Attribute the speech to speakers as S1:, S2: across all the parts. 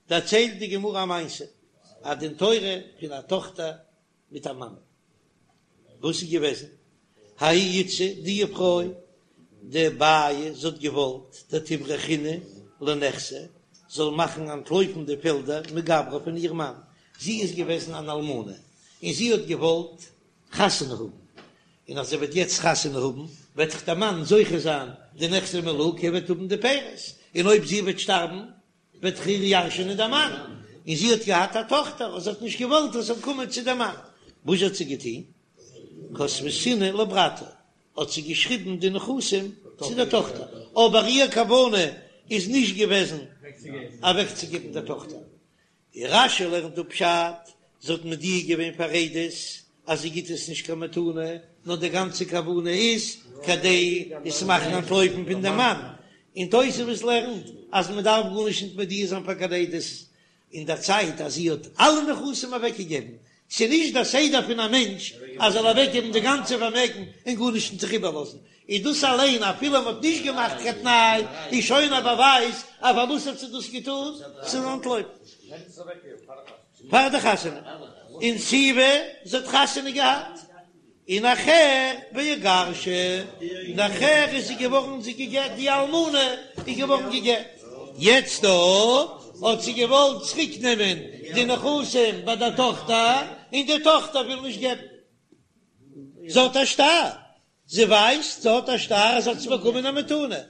S1: דערציילט די גמרא א מעשה, א דין תורה פון א טאכטער מיט א מאמע, וואס איז געוועזן? ההיא איתתא, די פרוי דבעיא, זי האט געוואלט דתברחינהו לנכסי, זאל מאכן אנטלויפן די פעלדער מגברא פון איר מאן, זי איז געוועזן אן אלמנה און זי האט געוואלט חתונה האבן, און אז זי וועט יעצט חתונה האבן וועט דאך דער מאן זוכה זיין די נכסי מלוג, ער וועט האבן די פירות, און אויב זי וועט שטארבן וועט דאך איר ירש'ענען דער מאן, און זי האט געהאט א טאכטער און זי האט נישט געוואלט עס זאל קומען צו דעם מאן, וואס האט זי געטון? כתבתינהו לברתה, האט זי געשריבן די נכסים צו דער טאכטער, אבער איר כוונה איז נישט געוועזן אוועקצוגעבן דער טאכטער, און רש"י לערנט דא פשט, זי האט מודיע געווען פאר עדות אז זי גיט עס נישט קיין מתנה, נאר די גאנצע כוונה איז כדי עס מאכן אנטלויפן פון דעם מאן, און תוספות לערנט אז מען דארף גארנישט נישט מודיע זיין פאר קיין עדות אין דער צייט אז זי האט אלע נכסים אוועקגעגעבן, ס'איז נישט דער סדר פון א מענטש אז זאל אוועקגעבן די גאנצע פארמעגן און גארנישט נישט זיך איבערלאזן, איז דאס אליין אפילו מען האט נישט געמאכט קיין תנאי איז שוין א באווייז אז פארוואס האט זי דאס געטון, ס'זאל אנטלויפן פאר די חתונה, אונסיבה זי האט חתונה געהאט און נאכער ואיגרשה, נאכער איז זי געווארן זי גע'גט, די אלמנה איז געווארן גע'גט, יעצט דא האט זי געוואלט צוריק נעמען די נכסים ביי דער טאכטער, און די טאכטער וויל נישט געבן, זי האט א שטר, זי ווייסט זי האט א שטר אז זי האט עס באקומען א מתנה,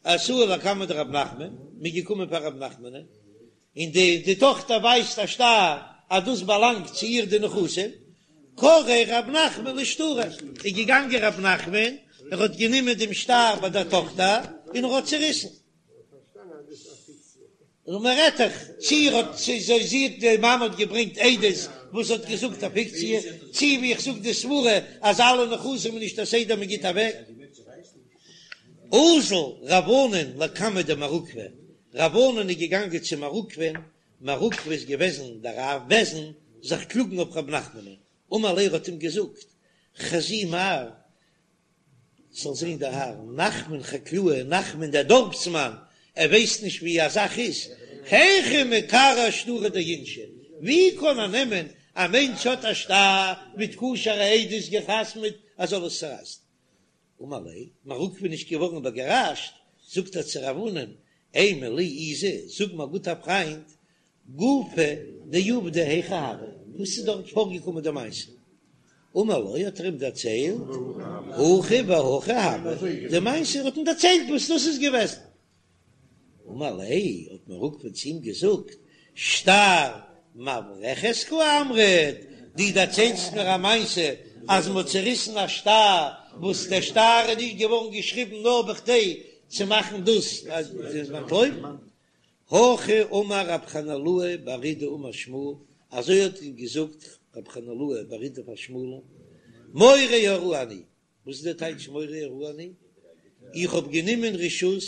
S1: אתו לקמיה דרב נחמן, מ'איז געקומען פאר רב נחמנ'ן, און די די טאכטער ווייזט א שטר אז דאס באלאנגט צו איר די נכסים, קרעיה רב נחמן לשטרא, איז געגאנגען רב נחמן, ער האט גענומען דעם שטר ביי דער טאכטער און ער האט צעריסן. און מען רעדט דאך צי ער האט צי זי זי האט די מאמע האט געברענגט עדות וואס האט געזאגט א פיקציע, צי ווי איך זאג די סברה אז אלע נכסים איז נישט א סדר מען גיט אוועק. אזל רב ענן לקמיה דמר עוקבא, רב ענן איז געגאנגען צו מר עוקבא'ן, מר עוקבא איז געוועזן דער אב בית דין, זיך קלאגן אויף רב נחמנ'ן, אמר ליה ער האט אים געזאגט, חזי מר, זאל זען דער האר, נחמן חקלאה, נחמן דער דארפסמאן, ער ווייסט נישט ווי א זאך איז, היכי מקרע שטרא דאינשי, ווי קען ער נעמען, א מענטש האט א שטר מיט כשר'ע עדות גע'חתמ'עט, ער זאל עס צערייסן. אמר ליה, מר עוקבא איז נישט געווארן איבערגעראשט, זאגט ער צו רב ענן, אימא לי איזי, זאג מיר גוטער פריינט, גופא דעובדא היכי הוה, וואס איז דארט פארגעקומען די מעשה? אמר לו, האט ער אים דערציילט, הכי והכי הוה, די מעשה, ער האט אים דערציילט וואס דאס איז געוועזן. אמר ליה, האט מר עוקבא צו אים געזאגט, שטר מברחת קאמרת, דו דערציילסט מיר א מעשה אז מען האט צעריסן א שטר, וואס דער שטר איז נישט געווארן געשריבן נאר בכדי צו מאכן דאס אז אנטלויפן. הכי אמר רב חנילאי בר אידי אמר שמואל, אזוי האט געזאגט רב חנילאי בר אידי פאר שמואל'ן, מורה הוראה אני, וואס איז דער טייטש מורה הוראה אני? איך האב גענומען רשות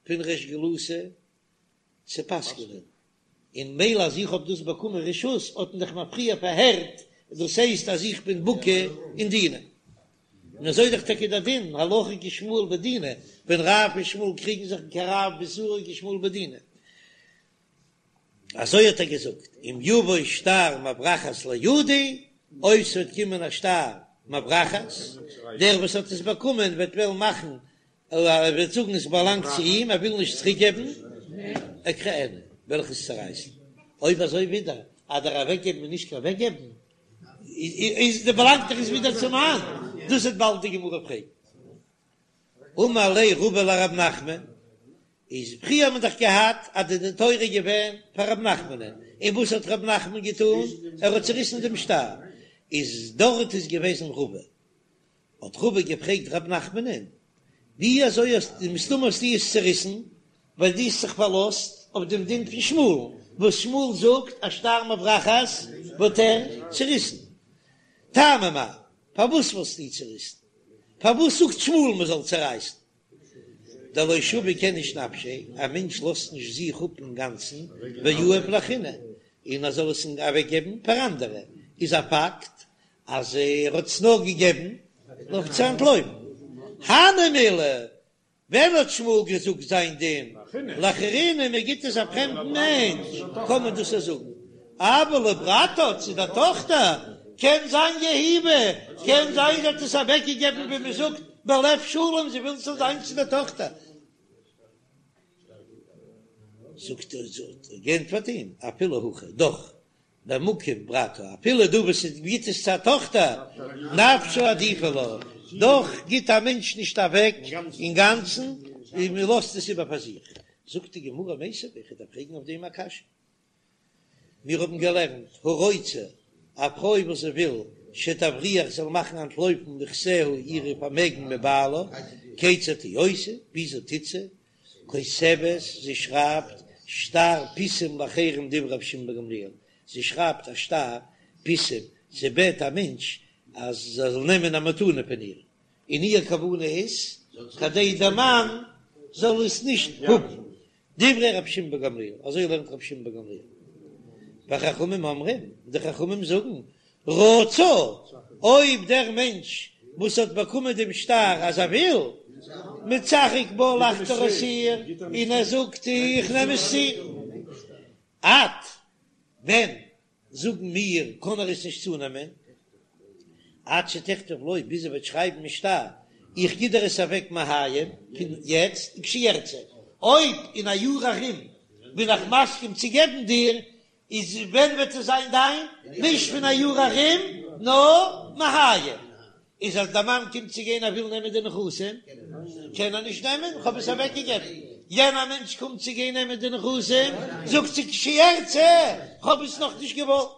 S1: פון ריש גלותא צו פסק'נען, און מילא אז איך האב דאס באקומען רשות האט מען דאך מיר פריער פארהערט, דאס הייסט אז איך בין בקי אין דינא. און אזוי איז דאך טאקע דער דין, הלכה כשמואל בדינא, ווען רב און שמואל קריגן זיך כרב באיסורא כשמואל בדינא. אזוי האט ער געזאגט, אם יבוא שטר מברחת לידי, אויב ס'וועט קומען א שטר מברחת, דער וואס האט עס באקומען וועט וועלן מאכן, ער וועט זאגן עס באלאנגט צו אים, ער וויל נישט צוריק געבן, אקרענה, וועל איך עס צערייסן. אויב אזוי ווידער, אז דער אוועקגעבן איז נישט קיין אוועקגעבן, איז די באלאנגט דאך עס ווידער צום מאן, דאס וועט באלד די גמרא פרעגן. אמר ליה רבא לרב נחמן, איז פריער האט מען דאך געהאט אז די דין תורה איז געווען פאר רב נחמנ'ן, און וואס האט רב נחמן געטון? ער האט צוריסן דעם שטר, איז דארט איז געוועזן רבא, האט רבא געפרעגט רב נחמנ'ן, ווי אזוי האסטו, מסתמא האסטו עס צוריסן, ווייל דו האסט זיך פארלאזט אויף דעם דין פון שמואל'ן, וואס שמואל זאגט אז שטר מברחת וואלט ער צוריסן, טעמא מאי, פארוואס וואלסטו צוריסן? פארוואס זאגט שמואל מען זאל צורייסן? דלא שביק איניש נפשיה, א מענטש לאזט נישט זיך אפ אינגאנצן, ויהיב לאחריני, און ער זאל עס אוועקגעבן פאר אנדערע, איז א פאקט אז ער האט עס נאר געגעבן אויף צו אנטלויפן. הני מילי. ווען האט שמואל געזאגט זיין דין לאחריני מען גיט עס א פרעמדן מענטש קען מען דאס זאגן, אבל לברתה צו דער טאכטער קען זיין יהיבא, קען זיין זי האט עס אוועק געגעבן ווי מען זאגט בלב שלם זי וויל ס'זאל זיין צו דער טאכטער. זאגט ער האט ער געענטפערט אים אפילו הכי דאך במקום ברתה, אפילו דא וואס עס גיט עס צו א טאכטער, נפשה עדיפא לה, דאך גיט א מענטש נישט אוועק אינגאנצן, און מען לאזט עס איבער פאר זיך. זאגט די גמרא מיתיבי, איך דארף פרעגן אויף דעם א קשיא. מיר האבן געלערנט, הרוצה, א פרוי וואס זי וויל, שתבריח זאל מאכן אנטלויפן נכסיה אירע פארמעגן מבעלה, כיצד היא עושה, וויאזוי טוט זי, כותבת, זי שרייבט שטר פיסים לאחרים דברי רבי שמעון בן גמליאל, זי שרייבט א שטר פיסים, זי בעט א מענטש אז ער זאל נעמען א מתנה פון איר, און איר כוונה איז כדי דער מאן זאל עס נישט האבן, דברי רבי שמעון בן גמליאל, אזוי לערנט רבי שמעון בן גמליאל, וחכמים אומרים, די חכמים זאגן, רצה, אויב דער מענטש וואס האט באקומען דעם שטר אז ער וויל, מצחק בה לאכט ער אויס איר און ער זאגט איך נעם עס צו. עד ווען זאגן מיר קען ער עס נישט צונעמען? עד שתכתוב לו ביז ער וועט שרייבן אין שטר איך גיב דיר עס אוועק מהיום פון יעצט וכשירצה, אויב אין א יאר ארום בין איך מסכים צו געבן דיר איז ווען וועט עס זיין דיין? נישט פון א יאר ארום, נאר מהיום. איז אז דער מאן קומט צו גיין ער וויל נעמען די נכסים, קען ער נישט נעמען, כ'האב עס אוועק געגעבן. יענער מענטש קומט צו גיין נעמען די נכסים, זאגט זי כשירצה, כ'האב עס נאך נישט געוואלט.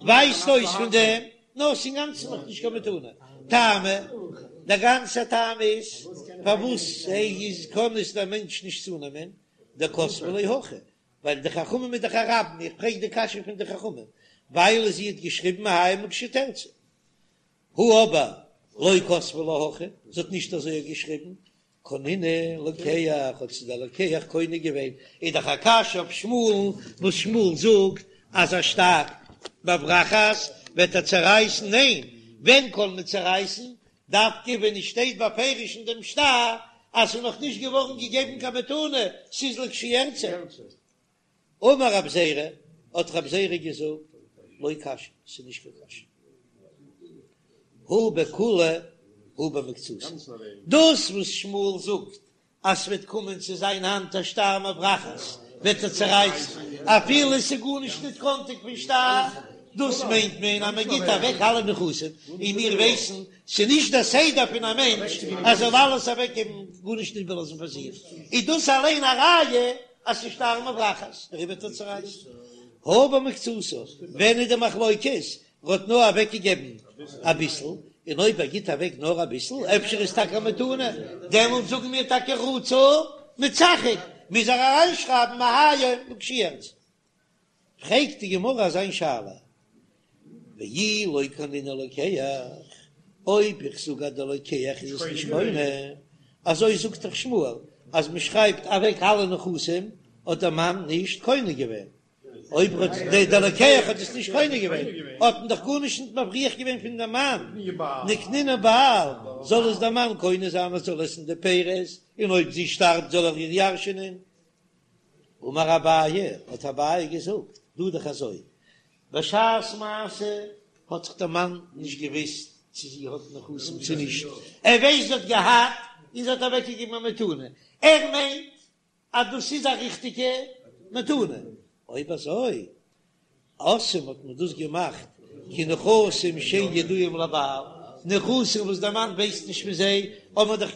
S1: ווייזט אויס פון דעם, נאר ס'איז אינגאנצן נאך נישט קיין מתנה. טעמא, דער גאנצער טעם איז פארוואס איז קען עס דער מענטש נישט צונעמען, דכתבה ליה הכי, ווייל די חכמים איז דאך א רבים, איך פרעג די קשיא פון די חכמים, ווייל זי האט געשריבן מהיום ולכשתרצה. הא אבער לא כתבה לה הכי, זי האט נישט אזוי געשריבן, קנינהו לוקח, האט עס דער לוקח קונה געווען, איז דאך א קשיא אויף שמואל'ן, וואס שמואל זאגט אז א שטר מברחת וועט ער צערייסן, ניין, ווען קען מען צערייסן? דווקא ווען עס שטייט בפירוש אין דעם שטר אז ס'איז נאך נישט געווארן געגעבן קיין מתנה, ס'איז לכשירצה. אמר רב זירא, האט רב זירא געזאגט, לא קשיא, ס'איז נישט קיין קשיא. הא בכולה הא במקצתה. דאס וואס שמואל זאגט אז ס'וועט קומען צו זיין האנט א שטר מברחת, וועט ער צערייסן, אפילו עס איז גארנישט ניט קאנטיג פון שטר, דאס מיינט מען אז מען גיט אוועק אלע נכסים, און מיר ווייסן ס'איז נישט דער סדר פון א מענטש אז ער זאל אלעס אוועקגעבן, גארנישט נישט איבערלאזן פאר זיך, איז דאס אליין א ראיה אז ס'איז שטר מברחת, דעריבער וועט ער צערייסן. הא במקצתה, ווען איז די מחלוקת? ער האט נאר אוועק געגעבן אביסל, און אויב ער גיט אוועק נאר אביסל, אפשר איז טאקע א מתנה, דעמאלט זאגן מיר טאקע רצה מצחק, מוז ער אריינשרייבן מהיום לכשירצה. פרעגט די גמרא אזא שאלה, ואי לא קנינהו לוקח, אויב איך זאג אז דער לוקח איז עס נישט קונה, אזוי זאגט דאך שמואל, אז מען שרייבט אוועק אלע נכסים האט דער מאן נישט קונה געווען, אויב האט דער לוקח האט עס נישט קונה געווען, האט מען דאך גארנישט נישט מבריח געווען פון דעם מאן, ניקנינהו בעל, זאל עס דער מאן קונה זיין ער זאל עסן די פירות, און אויב זי שטארבט זאל ער איר ירש'ענען. אמר אביי, האט אביי געזאגט, דא דאך אזוי, בשעת מעשה האט זיך דער מאן נישט געוואוסט צו זי האט נכסים צו נישט, ער ווייסט זי האט געהאט און זי האט אוועקגעגעבן א מתנה, ער מיינט אז דאס איז א ריכטיגע מתנה, אויב אזוי עשאום האט מען דאס געמאכט כנכסים שאין ידועים לבעל, נכסים וואס דער מאן ווייסט נישט פון זיי, האט מען דאך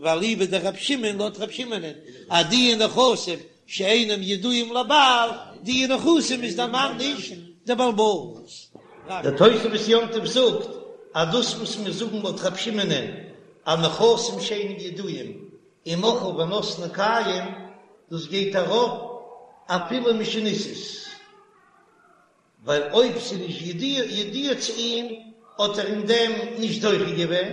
S1: ואליבא דרב שמעון לויט רב שמעונ'ען אז די נכסים שאינם ידועים לבעל, די נכסים איז דער מאן נישט דער בעל הבית.
S2: דער תוספות יום טוב זאגט אז דאס וואס מיר זאגן לויט רב שמעונ'ען אז נכסים שאינם ידועים ומחאה ונתנה קיים, דאס גייט ארויף אפילו משנישאת, ווייל אויב ס'איז נישט ידוע צו אים האט ער אין דעם נישט זוכה געווען,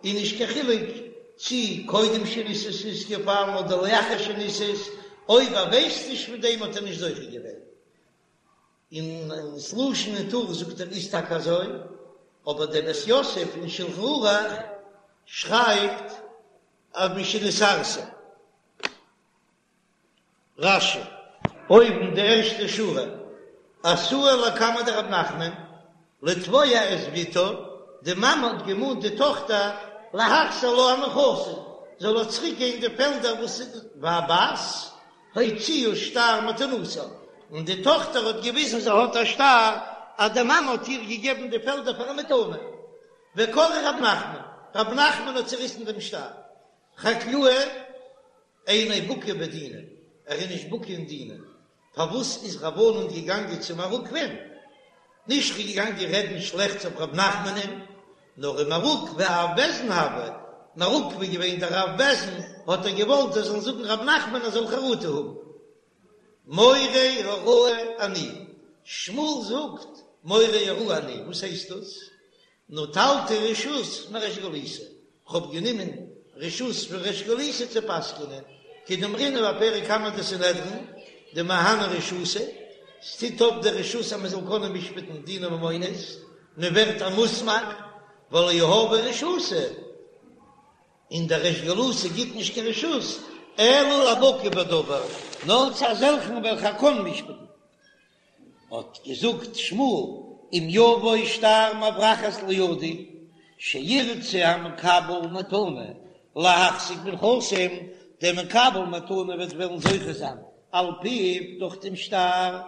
S2: און נישט קיין חילוק צי קודם שנישאת איז געפאלן אדער לאחר שנישאת, אויב ער ווייסט נישט פון דעם האט ער נישט זוכה געווען. און ס'לשון אין טור זאגט ער איז טאקע אזוי, אבער דער בית יוסף אין שלחן ערוך שרייבט. אז משנתארסה. רש"י, אויבן די ערשטע שורה, אתאי לקמיה דרב נחמן, לתבוע את בתה, די מאמע האט געמאנט די טאכטער להחזיר לה הנכסים, זאל איר צוריק געבן די פעלדער וואס והבת הוציאה שטר מתנתה, און די טאכטער האט געוויזן זי האט א שטר אז די מאמע האט איר געגעבן די פעלדער פאר א מתנה, וקרע רב נחמן, רב נחמן האט צעריסן דעם שטר, חקלאה אינו בקי בדינא, ער איז נישט בקי אין דינא, פארוואס איז רב ענן געגאנגען צו מר עוקבא'ן? נישט געגאנגען רעדן שלעכטס אויף רב נחמנ'ן, נאר ומר עוקבא אב בית דין הוה, מר עוקבא איז געווען דער אב בית דין, האט ער געוואלט זיי זאלן זאגן רב נחמן ער זאל חרטה האבן. מורה הוראה אני, שמואל זאגט מורה הוראה אני, וואס הייסט דאס? נטלתי רשות מריש גלותא, כ'האב גענומען רשות פון ריש גלותא צו פסק'נען, כדאמרינן בפרק קמא דסנהדרין, דמהני רשותא, ס'טוט אויף די רשות אז מ'זאל קענען משפט'ן דיני ממונות, מ'ווערט א מוסמך, ולא יהבי רשותא, און דער ריש גלותא גיט נישט קיין רשות, אלא לבקי בדבר, נאר צו אזעלכן וועלכע קען משפט'ן. האט געזאגט שמואל, אם יבוא שטר מברחת לידי, שירצה המקבל מתנה להחזיק בנכסים, דער מקבל מתנה וועט וועלן זוכה זיין על פיו דורך דעם שטר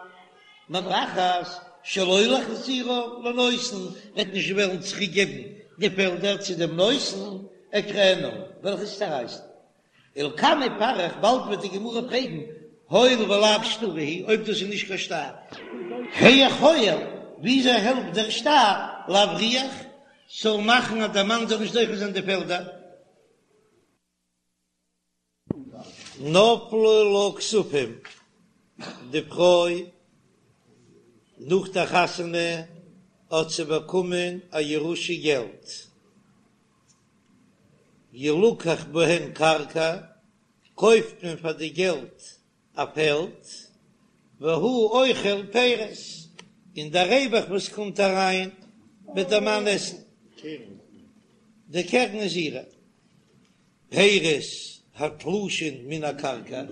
S2: מברחת, שלא להחזירה לנותן, וועט נישט וועלן צוריק געבן די פעלדער צו דעם נותן, אקרענה, וועל איך עס צערייסן. ולקמיה פריך, באלד וועט די גמרא פרעגן, הואיל ולאו שטרא הוא, אויב דאס איז נישט קיין שטר, היאך הועיל, וויאזוי העלפט דער שטר להבריח, ס'זאל מאכן אז דער מאן זאל נישט זוכה זיין די פעלדער? נפלו לה כספים, די פרוי נאך דער חתונה האט זי באקומען א ירושה געלט. ילקח בהן קרקע, קויפט מען פאר די געלט א פעלד, והוא אוכל פירות, און דער רווח וואס קומט אריין וועט דער מאן עסן, די קרן איז אירע. פירות התלושין מן הקרקע,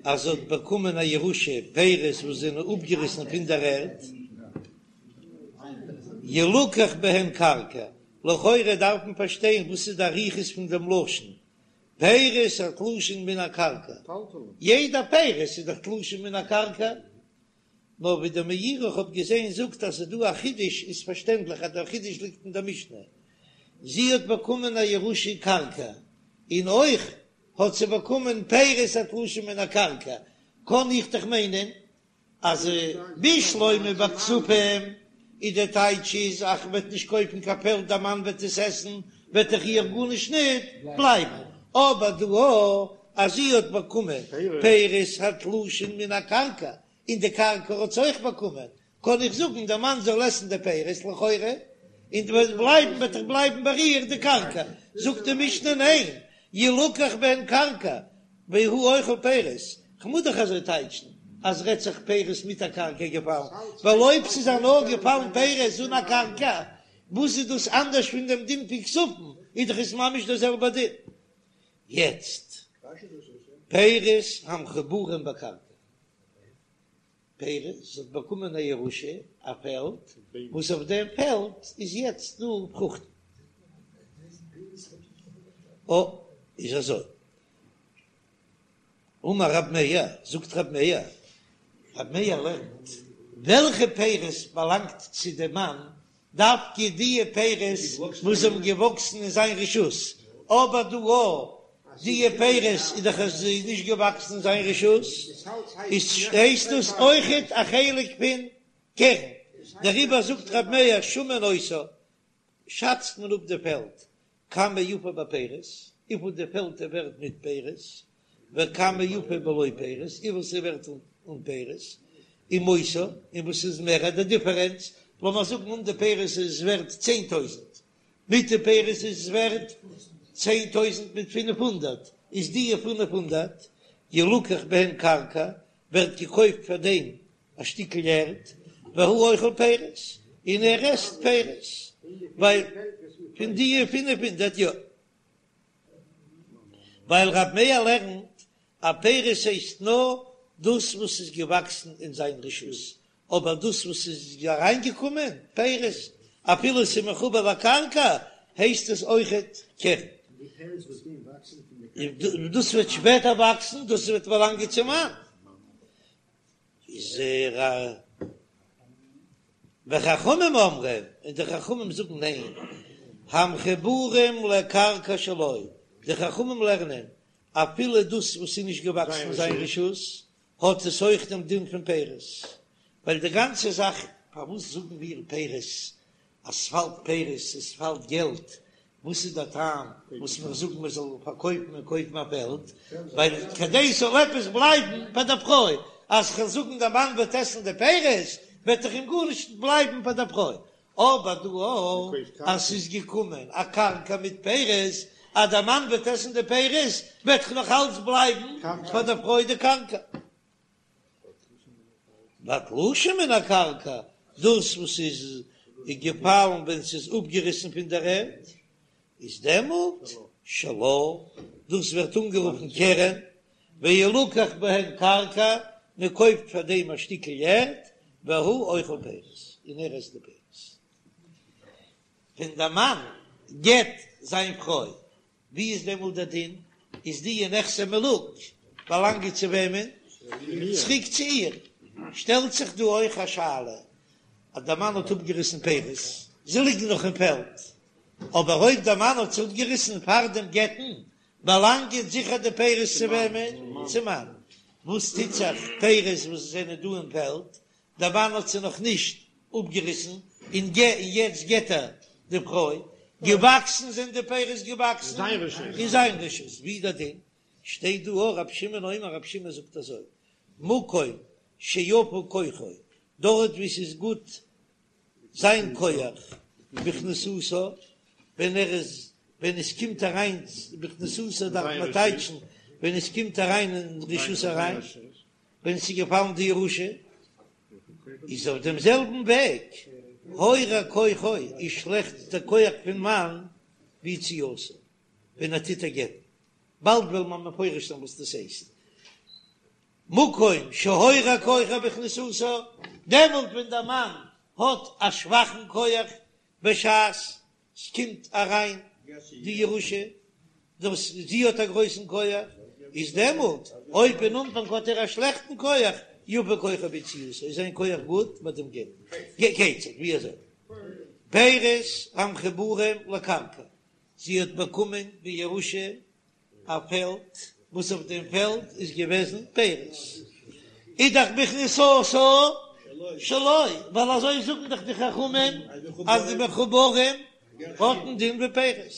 S2: אז זי האט באקומען א ירושה פירות וואס זענען אפגעריסן פון דער ערד, ילקח בהן קרקע, לכאורה דארף מען פארשטיין וואס איז די אריכות פון דעם לשון פירות התלושין מן הקרקע, יעדע פירות איז דאך תלושין מן הקרקע, נאר ווי דער מאירי איך האב געזען זאגט אז ס'איז דא א חידוש, איז פארשטענדליך אז דער חידוש ליגט אין דער משנה, זי האט באקומען א ירושה קרקע, און אויך האט זי באקומען פירות התלושין מן הקרקע, קען איך דאך מיינען אז בשלמא ביי כספים איז דער טייטש איז אז כ'וועט נישט קויפן קיין פעלד דער מאן וועט עס עסן וועט דאך איר גארנישט ניט בלייבן, אבער דא אז זי האט באקומען פירות התלושין מן הקרקע און די קרקע האט זי אויך באקומען קען איך זאגן דער מאן זאל עסן די פירות לכאורה און וועט בלייבן וועט דאך בלייבן ביי איר די קרקע, זאגט די משנה ניין ילקח בהן קרקע והוא אוכל פירות, כ'מוז דאך אזוי טייטשן אז רעדט זיך פירות מיט א קרקע געפאלן, ווייל אויב ס'איז א נאר געפאלן פירות אן א קרקע, וואס איז דאס אנדערש פון דעם דין פון כספים, איז דאך עס ממש דער זעלבער דין. יעצט, פירות המחוברים בקרקע. פירות, זי האט באקומען א ירושה, א פעלד, וואס אויף דעם פעלד איז יעצט דא פרוכטן. או, איז אזוי. אמר רב מאיר, זאגט רב מאיר, רב מאיר לערנט, וועלכע פירות באלאנגט צו דעם מאן דווקא די פירות וואס האבן געוואקסן אין זיין רשות, אבער דא או די פירות איז דאך עס איז נישט געוואקסן אין זיין רשות, איז הייסט דאס אויכעט א חלק פון קרן, דעריבער זאגט ר' מאיר שמין אותה, שאצט מען אפ די פעלד כמה יפה בפירות, וויפיל די פעלד איז ווערט מיט פירות, וכמה יפה בלא פירות, וויפיל ס'איז ווערט אן פירות, ומותר, און וואס איז מער די דיפערענץ, לאמיר זאגן אן די פירות איז ווערט 10,000, מיט די פירות איז ווערט 10,000 מיט 500, איז די 500 ילקח בהן קרקע, ווערט געקויפט פאר דעם א שטיקל ערד, והוא אוכל פירות, און ער עסט פירות, ווייל פון די 500 יא.
S1: ווייל רב מאיר לערנט אז פירות הייסט נאר דאס וואס איז געוואקסן אין זיין רשות, אבער דאס וואס איז אריינגעקומען פירות אפילו עס איז מחובר לקרקע הייסט עס אויכעט קרן. דאס וועט שפעטער וואקסן, דאס וועט באלאנגען צום מאן. איז ער וחכמים אומרים, און די חכמים זאגן ניין, המחוברים לקרקע שלו, די חכמים לערנען אפילו דאס וואס איז נישט געוואקסן אין זיין רשות, האט עס אויך דעם דין פון פירות, ווייל די גאנצע זאך פארוואס זאגן מיר פירות, אז ס'פאלט פירות, עס פאלט געלט, וואס איז דער טעם וואס מיר זאגן מען זאל פארקויפן און קויפן א פעלד, ווייל כדי ס'זאל עפעס בלייבן פאר דער פרוי, אז כ'וועל זאגן דער מאן וועט עסן די פירות, וועט דאך אים גארנישט בלייבן פאר דער פרוי, אבער דא אז ס'איז געקומען א קרקע מיט פירות, אז דער מאן וועט עסן די פירות, וועט דאך נאך אלץ בלייבן פאר דער פרוי די קרקע. והתלושים מן הקרקע, דאס וואס איז געפאלן ווען ס'איז אפגעריסן פון דער ערד, איז דעמאלט שלה, דאס ווערט אנגערופן קרן, וילקח בהן קרקע, מען קויפט פאר דעם א שטיקל ערד, והוא אוכל פירות, און ער עסט די פירות. ווען דער מאן גט זיין פרוי, ווי איז דעמאלט דער דין? איז די נכסי מלוג באלאנגען צו וועמען? צוריק צו איר. שטעלט זיך דא אויך א שאלה, אז דער מאן האט אפגעריסן פירות, זיי ליגן נאך אין פעלד, אבער אויב דער מאן האט זיי אפגעריסן פאר דעם גט'ן, באלאנגען זיכער די פירות צו וועמען? צום מאן. וואס טוט זיך פירות וואס זענען דא אין פעלד, דער מאן האט זיי נאך נישט אפגעריסן, און יעצט גט ער די פרוי, געוואקסן זענען די פירות געוואקסן אין זיין רשות, ווי איז דער דין? שטייט דא אויך רבי שמעון אומר רבי שמעון זאגט אזוי, מקום שיפה כוחו, דארט וואו ס'איז גוט זיין כח בכניסתה, ווען ער איז ווען עס קומט אריין בכניסתה דארף מען טייטשן ווען עס קומט אריין אין רשות אריין, ווען עס איז געפאלן די ירושה, איז אויף דעם זעלבן וועג הורע כוחו איז שלעכט דער כח פון מאן ביציאתה ווען ער טוט איר גט'ן, באלד וועלן מיר מפרש זיין וואס דאס הייסט. מקום שהורע כוחו בכניסתה, דעמאלט ווען דער מאן האט א שוואכן כח בשעת ס'קומט אריין די ירושה, דאס זי האט א גרויסן כח, איז דעמאלט אויב אין אנפאנג האט ער א שלעכטן כח, יפה כוחו ביציאתה, איז זיין כח גוט ביי דעם גט. כיצד, ווי אזוי? פירות המחוברים לקרקע, זי האט באקומען בירושה א פעלד וואס אויף דעם פעלד איז געוועזן פירות, איז דאך בכניסתה שלו, ווייל אזוי זאגן דאך די חכמים אז די מחוברים האטן דין ווי פירות,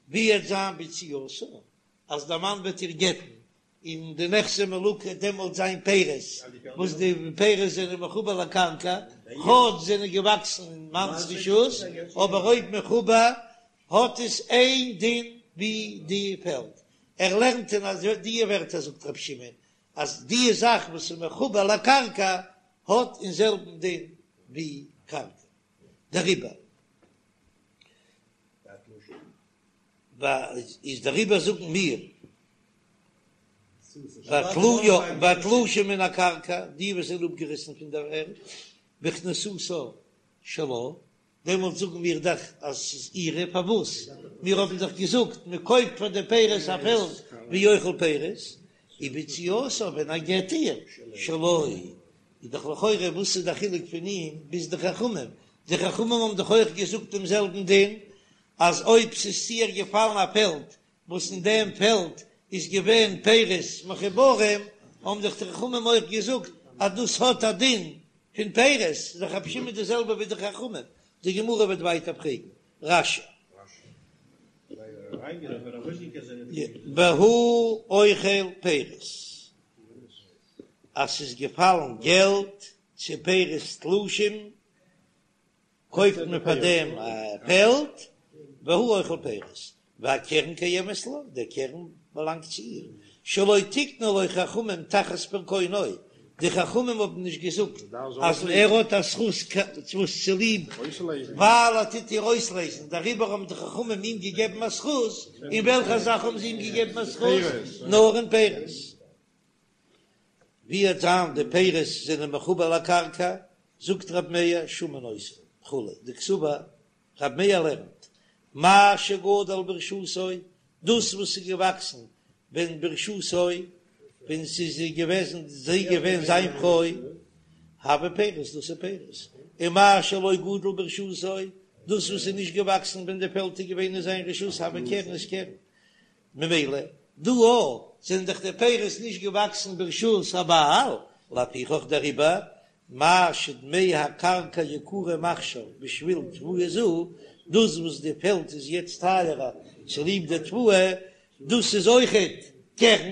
S1: ווי וועט זיין ביציאתה אז דער מאן וועט איר גט'ן און די נכסי מלוג דעמאלט זיין פירות, וואס די פירות זענען מחובר לקרקע, כאטש זענען געוואקסן אין מאנ'ס רשות, אבער אויב מחובר האט עס איין דין ווי די פעלד, ער לערנט אין אז די ווערטער זאגט רבי שמעון אז די זאך וואס איז מחובר לקרקע האט אין זעלבן דין ווי קרקע, דעריבער איז דעריבער זאגן מיר והתלושים מן הקרקע די וואס זענען אפגעריסן פון דער ערד בכניסתה שלה דעמאלט זאגן מיר דאך אז ס'איז אירע, פארוואס? מיר האבן דאך געזאגט מען קויפט פאר די פירות א פעלד והוא אוכל פירות, וביציאתה ווען ער גט איר שלו, איז דאך לכאורה וואס איז די חילוק פון אים ביז די חכמים, די חכמים האבן דאך אויך געזאגט דעם זעלבן דין אז אויב ס'איז צו איר געפאלן א פעלד וואס אין דעם פעלד איז געווען פירות מחוברים, האבן דאך די חכמים אויך געזאגט אז דאס האט א דין פון פירות, איז דאך רבי שמעון די זעלבע ווי די חכמים, די גמרא וועט ווייטער פרעגן רש"י. והוא אוכל פירות, אז ס'איז געפאלן געלט צו פירות תלושים קויפט מען פאר דעם א פעלד, והוא אוכל פירות, והקרן קיימת לה, דער קרן באלאנגט צו איר, שלא תקנו לו חכמים תחת פרקונו, די חכמים האבן נישט געזאגט אז ער האט א זכות וואס צוליב ווייל ער טוט איר אויסלייזן, דעריבער האבן די חכמים אים געגעבן א זכות, אין וועלכע זאך האבן זיי אים געגעבן א זכות? נאר אין פירות. ווי וועט זיין די פירות זענען מחובר לקרקע, זאגט רב מאיר שמין אותו וכו', דקסבר רב מאיר לערנט מה שגדל ברשותו, דאס וואס איז געוואקסן ווען ברשותו, ווען ס'איז געוועזן זי געווען זיין פרוי, הוי פירות דאס איז פירות, און מה שלא גדל ברשותו, דאס וואס איז נישט געוואקסן ווען די פעלד איז געווען אין זיין רשות הוי קרן איז קרן, ממילא דא אויך זענען דאך די פירות נישט געוואקסן ברשות הבעל, לפיכך דעריבער מה שדמי הקרקע יקרים עכשיו בשביל תבואה זו, דאס וואס די פעלד איז יעצט טייערער צוליב די תבואה, דאס איז אויכעט קרן,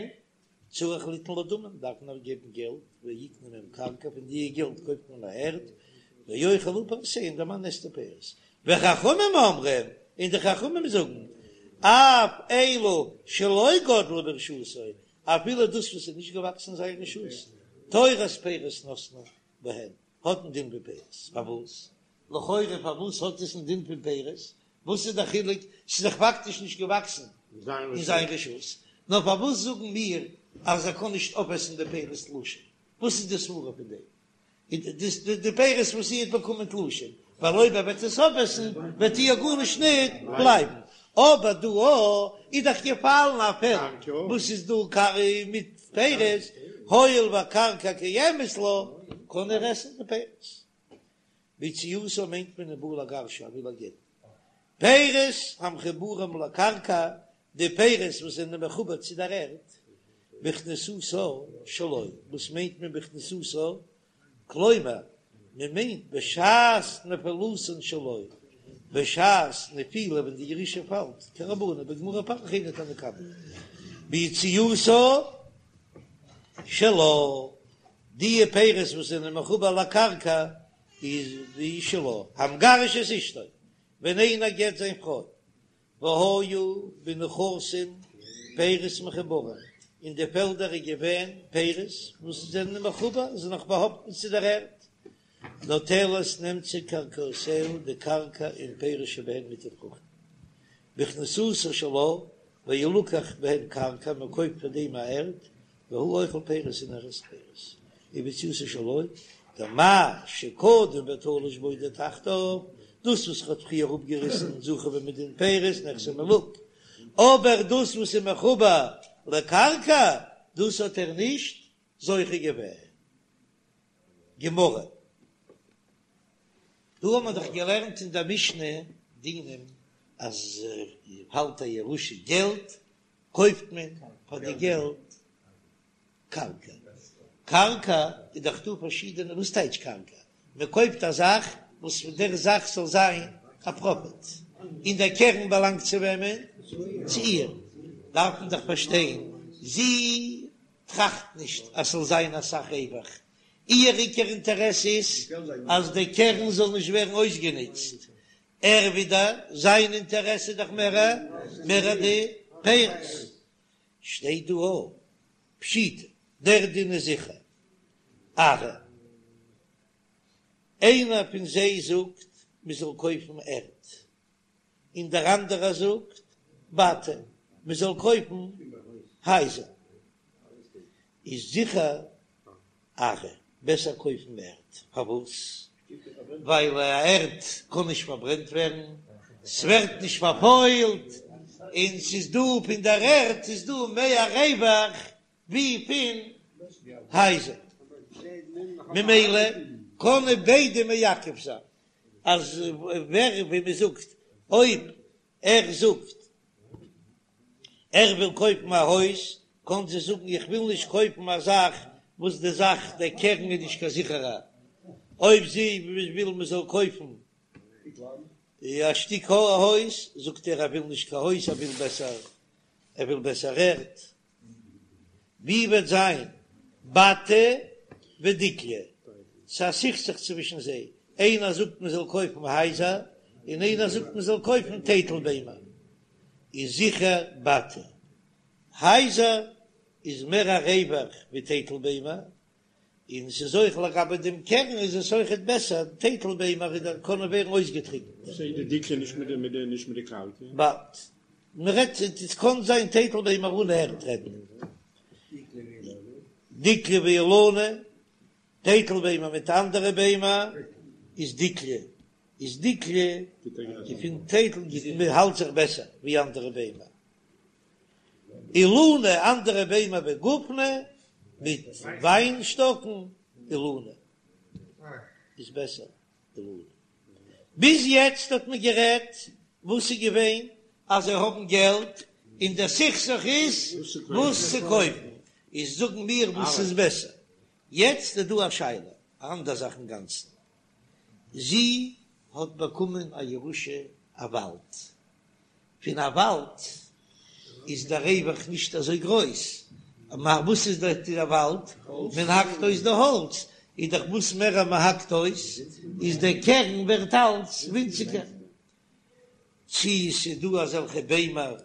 S1: צריך ליתן לה דמים, דארף מען איר געבן געלט, ויקנה מהם קרקע, פון די געלט קויפט מען א ערד, ויאכל הוא פירותיה, און דער מאן עסט די פירות. וחכמים אומרים, און די חכמים זאגן, אף אלו שלא גדלו ברשותו, אפילו דאס וואס איז נישט געוואקסן אין זיין רשות, תורת פירות נתנו בהן, האט א דין ווי פירות. פארוואס? לכאורה פארוואס האט עס א דין פון פירות? וואס איז דער חילוק? ס'איז דאך פאקטיש נישט געוואקסן אין זיין רשות. נאר פארוואס זאגן מיר אז ער קען נישט אויפעסן די פירות תלושים? וואס איז די סברא פון דעם? די פירות וואס זי האט באקומען תלושים, ווייל אויב ער וועט עס אויפעסן וועט איר גארנישט ניט בלייבן, אבער דא איז דאך געפאלן א פעלד וואס איז דא מיט פירות, הואיל והקרקע קיימת לה, קען ער עסן די פירות. ביציאתה מיינט מען ובא לגרשה, ער וויל איר גט'ן. פירות המחוברים לקרקע, די פירות וואס זענען מחובר צו דער ערד, בכניסתה שלו, וואס מיינט מען בכניסתה? כלומר, מען מיינט בשעת נפילתן שלו, בשעת נפילה ווען די ירושה פאלט, כרבנן בגמרא פריך היינו תנא קמא, ביציאתה שלה, די פירות וואס זענען מחובר לקרקע איז די שלה, המגרש את אשתו, ווען איינער גט זיין פרוי, והיו בנכסים פירות מחוברים, אין די פעלדער איז געווען פירות וואס זענען מחובר, זענען נאך באהאפטן צו דער ערד, נוטלת נעמט זי קרקעותיה די קרקע עם פירות שבהן מיט די פרוכטן, בכניסתה שלה, וילקח בהן קרקע, מען קויפט פאר דעם א ערד, והוא אוכל פירות און ער עסט פירות, וביציאתה שלו, דמה שקדם ותלש בו תחתיו, דאס וואס ער האט פריער אפגעריסן זכה בו מדין פירות נכסי מלוג, אבער דאס וואס איז מחובר לקרקע, דאס האט ער נישט זוכה געווען. גמרא. דא האט מען דאך געלערנט אין דער משנה דינים אז פאלט א ירושה געלט קויפט מען פאר די געלט קרקע, קרקע איז דאך דא פארשידענע, וואס טייטש קרקע? מען קויפט א זאך וואס פון דער זאך זאל זיין א פראפיט, און דער קרן באלאנגט צו וועמען? צו איר, דארף מען דאך פארשטיין, זי טראכט נישט אז ס'זאל זיין אסאך רווח, איר עיקר אינטערעס איז אז דער קרן זאל נישט ווערן אויסגענוצט, ער ווידער, זיין אינטערעס איז דאך מער מער די פירות. שטייט דא א פשיטא, דער דין איז זיכער. ארעא, איינער פון זיי זאגט מען זאל קויפן ערד, און דער אנדערער זאגט בתי, מען זאל קויפן הייזער. איז זיכער ארעא, בעסער קויפן ערד, פארוואס? ווייל א ערד קען נישט פארברענט ווערן, ס'ווערט נישט פארפוילט, און ס'איז דא פון דער ערד איז דא מער רווח ווי פון הייזער, ממילא קענען ביידע מעכב זיין, אז ווער ווי מ'זאגט אויב ער זאגט ער וויל קויפן א הויז, קען זי זאגן איך וויל נישט קויפן א זאך וואס די זאך דער קרן איז נישט קיין זיכערע, אויב זי וויל מען זאל קויפן א שטיק הויז, זאגט ער ער וויל נישט קיין הויז ער וויל בעסער ער וויל בעסער ערד. ווי וועט זיין בתי ודיקלי? ס'איז א סכסוך צווישן זיי, איינער זאגט מען זאל קויפן הייזער, און איינער זאגט מען זאל קויפן טייטל ביימער, איז זיכער בתי הייזער איז מער א רווח ווי טייטל ביימער. און ס'איז אויך לגבי דעם קרן איז עס אויכעט בעסער, טייטל ביימער איז דאך קענען ווערן אויסגעטריקנט.
S3: וואס איז די דיקלא נישט מיט די מיט די נישט מיט די קרקע?
S1: באלד. מ'רעדט עס קען זיין טייטל ביימער אן ערד רעדט מען. דיקלא ואילנא, טייטל ביימער מיט אנדערע ביימער איז דיקלא, איז דיקלא די פון טייטל גיט מען האלט זיך בעסער ווי אנדערע ביימער. אילנא אנדערע ביימער וגופני מיט וויין שטאקן אילנא איז בעסער אילנא. ביז יעצט האט מען גערעדט וואס איז געווען אז זיי האבן געלט און דער סכסוך איז וואס צו קויפן איז זאגן מיר וואס איז בעסער. יעצט איז דא א שאלה א אנדער זאך אינגאנצן זי האט באקומען א ירושה א וואלד פון א וואלד איז דער רווח נישט אזוי גרויס, וואס איז דער וואלד? מען האקט אויס די האלץ, איז דאך וואס מער מען האקט אויס איז דער קרן ווערט אלץ ווינציגער. צי ס'איז דא אזעלכע ביימער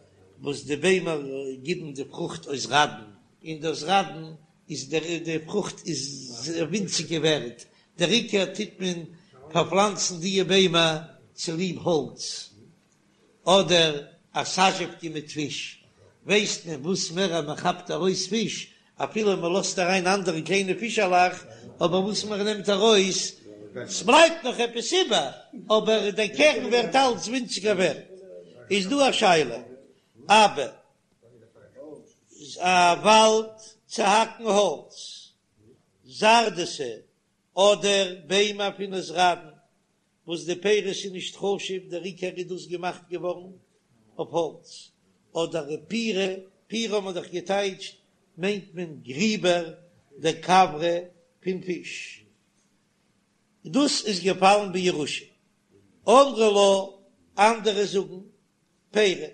S1: וואס די ביימער גיבן די פרוכט אויס ראדן, און דאס ראדן איז דער די פרוכט איז ווינציגער ווערט, דער עיקר טוט מען פארפלאנצן דיע ביימער צוליב האלץ. אדער א סאזשעווקע מיט פיש, ווייסט מען וואס מער אז מען כאפט ארויס פיש, אפילו מען לאזט אריין אנדערע קליינע פישעלעך, אבער וואס מען נעמט ארויס, ס'בלייבט נאך עפעס איבער, אבער דער קרן ווערט אלץ ווינציגער ווערט. איז דא א שאלה, אבא, א וואלד צו האקן האלץ, זרדתא, אדער ביימער פון אויסראדן, וואס די פירות איז נישט חשוב, דער עיקר איז דאס געמאכט געווארן אויף האלץ, אדער פירי, פירי האט מען דאך געטייטשט מיינט מען גריבער דכוורי פון פיש, דאס איז געפאלן בירושה, אמרי לה, אנדערע זאגן פירי.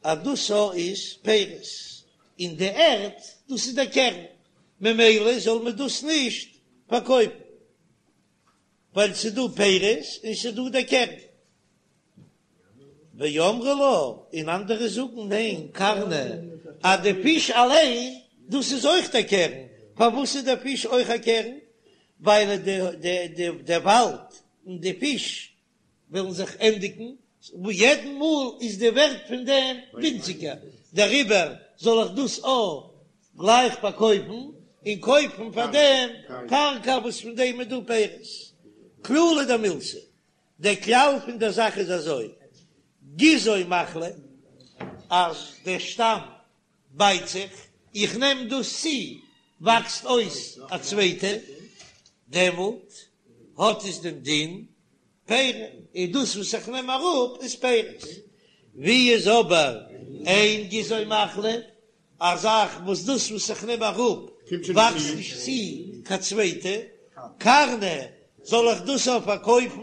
S1: אז דאס איז פירות און די ערד דאס איז דער קרן, ממילא זאל מען דאס נישט פארקויפן, ווייל ס'איז דא פירות און ס'איז דא דער קרן. ואמרי לה, און אנדערע זאגן ניין, קרנא, אז די פיש אליין דאס איז אויך דער קרן, פארוואס איז דער פיש אויך א קרן? ווייל די וואלד און די פיש וועלן זיך ענדיגן, וואו יעדן מאל איז די ווערט פון דעם ווינציגער, דעריבער זאל איך דאס אויך גלייך פארקויפן און קויפן פאר דעם קרקע וואס פון דעם איז דא פירות. כללא דמילתא, דער כלל פון דער זאך איז אזוי, גזעו מחליף, אז דער שטאם בייט זיך, איך נעם דאס צו, וואקסט אויס א צווייטע, דעמאלט האט עס דעם דין פירי, און דאס וואס איך נעם אראפ איז פירות. ווי איז אבער אין גזעו מחליף, א זאך וואס דאס וואס איך נעם אראפ וואקסט נישט צו קיין צווייטע, קרנא, זאל איך דאס אויך פארקויפן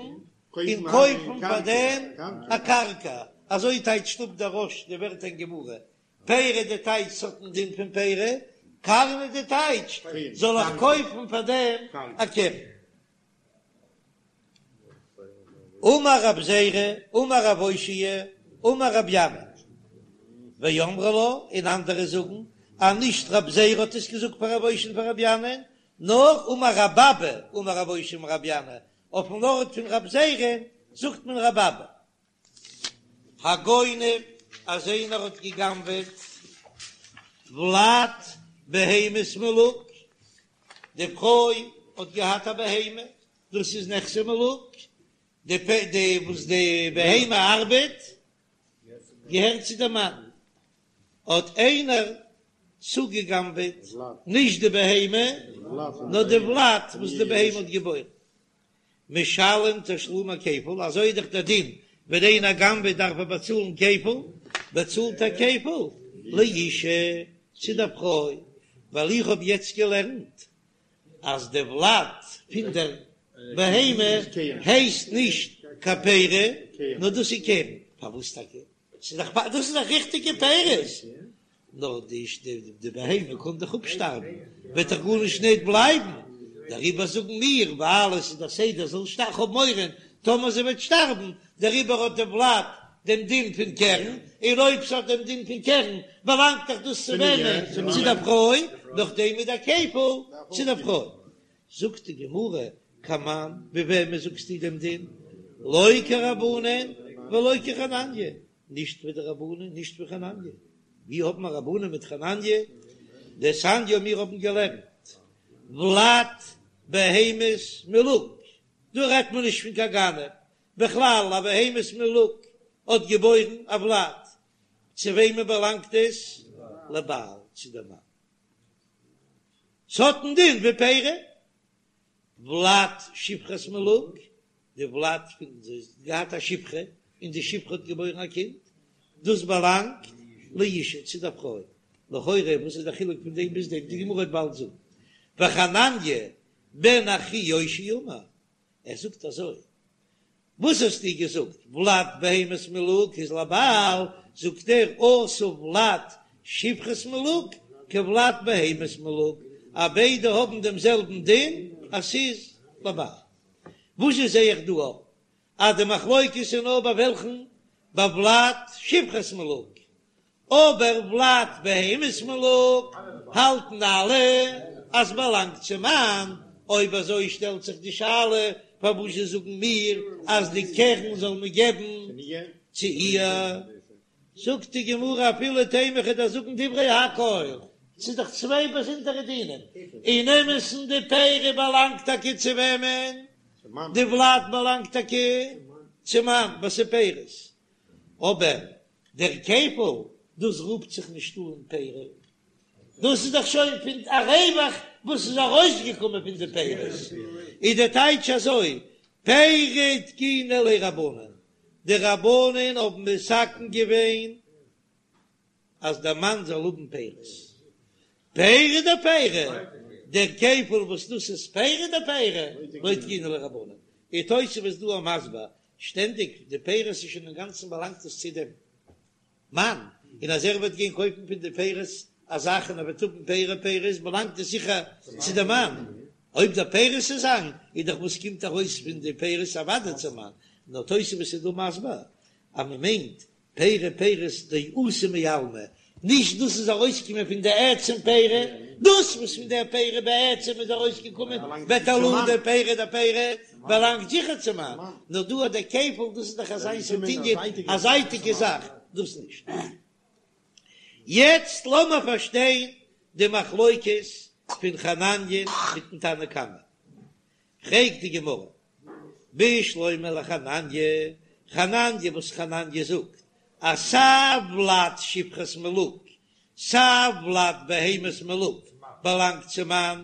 S1: און קויפן פאר דעם א קרקע, אזוי טייטשט אפ דער רא"ש די ווערטער אין גמרא, פירי די טייטש ס'האט דעם דין פון פירי, קרנא די טייטש זאל איך קויפן פאר דעם א קרן. אמר רב זירא, אמר רב אושעיא, אמר רב ינאי, ואמרי לה, און אנדערע זאגן אז נישט רב זירא האט עס געזאגט פאר רב אושעיא און פאר רב ינאי, נאר אמר רב אבא, אמר רב אושעיא אמר רב ינאי, אויפן ארט פון רב זירא זאגט מען רב אבא. הגונב אז איינער האט געגנבעט ולד בהמת מלוג, די פרוי האט געהאט א בהמה, דאס איז נכסי מלוג, די די וואס די בהמה ארבעט געהערט צו די מאן, האט איינער צוגעגנבעט נישט די בהמה נאר די ולד וואס די בהמה האט געבוירן. משלם תשלומי כפל, אזוי איז דאך דער דין, ווען איינער גנב'עט דארף ער באצאלן כפל, באצאלט ער כפל לאשה, צו דער פרוי, ווייל איך האב יעצט געלערנט אז די ולד פון דער בהמה הייסט נישט קיין פרי, נאר דאס איז קרן, פארוואס טאקע? ס'איז דאך דאס איז דאך ריכטיגע פירות, נאר די די בהמה קען דאך אפשטארבן, וועט דאך גארנישט ניט בלייבן, דעריבער זאגן מיר, ווייל עס איז דער סדר זאל שטארבן, כ'האב מורא טאמער זי וועט שטארבן, דעריבער האט די ולד דעם דין פון קרן, און אויב ס'האט דעם דין פון קרן, באלאנגט דאך דאס צו וועמען? צו דער פרוי. נאכדעם איז דער כפל צו דער פרוי. זאגט די גמרא, כמאן, ווי וועמען זאגסטו דעם דין? לא כרבנן ולא כחנניה, נישט ווי די רבנן נישט ווי חנניה, ווי האבן מיר רבנן מיט חנניה? דתניא מיר האבן געלערנט ולד בהמת מלוג, דא רעדט מען נישט פון קיין גנב, בכלל א בהמת מלוג האט געבוירן א ולד, צו וועמען באלאנגט עס? לבעל, צו דער מאן. ס'האט א דין ווי פירי. ולד שפחת מלוג, די ולד פון זי האט געהאט א שפחה און די שפחה האט געבוירן א קינד, דאס באלאנגט לאשה צו דער פרוי. לכאורה וואס איז דער חילוק פון דעם ביז דעם? די גמרא וועט באלד זאגן. וחנניה בן אחי יאשיה אמר, ער זאגט אזוי, וואס האסטו געזאגט ולד בהמת מלוג איז לבעל, זאגט ער אתא ולד שפחת מלוג כולד בהמת מלוג, אז ביידע האבן דעם זעלבן דין אז ס'איז לבעל. וואס זשע זע איך דא אויף אז די מחלוקת איז נאר ביי וועלכן? ביי ולד שפחת מלוג, אבער ולד בהמת מלוג האלטן אלע אז באלאנגט צום מאן, אויב אזוי שטעלט זיך די שאלה פארוואס זשע זאגן מיר אז די קרן זאל מען געבן צו איר? זאגט די גמרא אפילו תימא כ'וועל דיר זאגן דברי הכל, ס'איז דאך צוויי באזונדערע דינים, אין אמת'ן די פירי באלאנגט טאקע צו וועמען? די ולד באלאנגט טאקע צום מאן ווייל ס'איז פירות, אבער דער כפל, דאס רופט זיך נישט אן פירי, דאס איז דאך שוין פון א רווח וואס איז ארויסגעקומען פון די פירות, איז דער טייטש אזוי, פירי תקינו ליה רבנן, די רבנן האבן מתקן געווען אז דער מאן זאל האבן פירות, פירי דפירי, דער כפל וואס דאס איז פירי דפירי, לא תקינו ליה רבנן, און תוספות איז דא מסביר שטענדיג די פירות איז שוין אינגאנצן באלאנגט עס צו דעם מאן, און אז ער וועט גיין קויפן פון די פירות א זאך און ער וועט האבן פירי פירות באלאנגט עס זיכער צו דעם מאן, אויב די פירות איז זיין איז דאך וואס קומט ארויס פון די פירות אוודאי צום מאן, נאר תוספות איז דא מסביר אז מען מיינט פירי פירות דאתו מעלמא, נישט דאס איז ארויסגעקומען פון די עצם פירי, דאס וואס פון דער פירי בעצם איז ארויסגעקומען בתולדה פירי דפירי באלאנגט זיכער צום מאן, נאר דא האט דער כפל, דאס איז דאך אזא ס'טינגען א זייטיגע זאך, דאס נישט. יעצט לאמיר פארשטיין די מחלוקת פון חנניה מיטן תנא קמא. פרעגט די גמרא, בשלמא לחנניה, חנניה וואס חנניה זאגט אז סיי ולד שפחת מלוג סיי ולד בהמת מלוג באלאנגט צום מאן,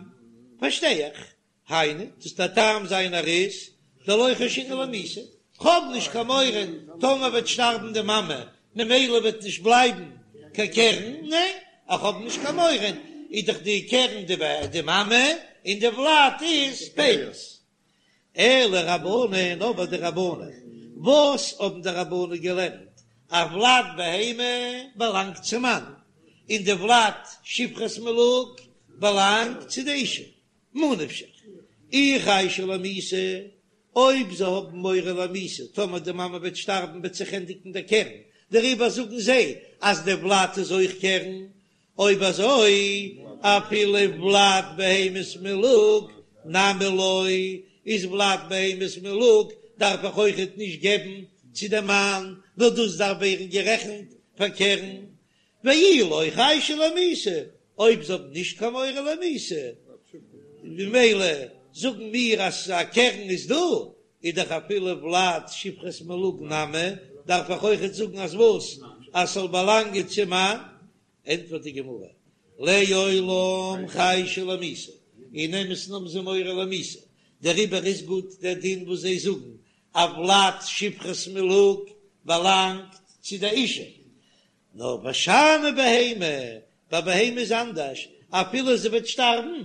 S1: פארשטיי איך, היינו, דאס דער טעם זיינער איז דלא חיישינן למיתה, כ'האב נישט קיין מורא טאמער וועט שטארבן די מאמע ממילא וועט נישט בלייבן קיין קרן, ניין איך האב נישט קיין מורא, איז דאך די קרן די מאמע און די ולד איז פירות. אלא רבנן, אבער די רבנן, וואס האבן די רבנן געלערנט אז ולד בהמה באלאנגט צום מאן, און די ולד שפחת מלוג באלאנגט צו די אישה, ממה נפשך, אי חיישי למיתה, אויב זיי האבן מורא למיתה, טאמער די מאמע וועט שטארבן וועט זיך ענדיגן דער קרן, דעריבער זאגן זיי אז די ולד איז אויך קרן, אויב אזוי אפילו ולד בהמת מלוג נמי לא, איז ולד בהמת מלוג דארף איך אויכעט נישט געבן צו די מאן, נאר דאס דארף ווערן גערעכנט פאר קרן, ואי לא חיישי למיתה, אויב זיי האבן נישט קיין מורא למיתה, ממילא זאגן מיר אז א קרן איז דא, איז דאך אפילו ולד שפחת מלוג נמי, דארף איך אויכעט זאגן אז וואס? אז ס'זאל באלאנגען צום מאן? ענטפערט די גמרא, לעולם חיישי למיתה, אין אמת'ן האבן זיי מורא למיתה, דעריבער איז גוט דער דין וואס זיי זאגן אז ולד שפחת מלוג באלאנגט צו די אישה, נאר ושאני בהמה, ביי בהמה איז אנדערש, אפילו זי וועט שטארבן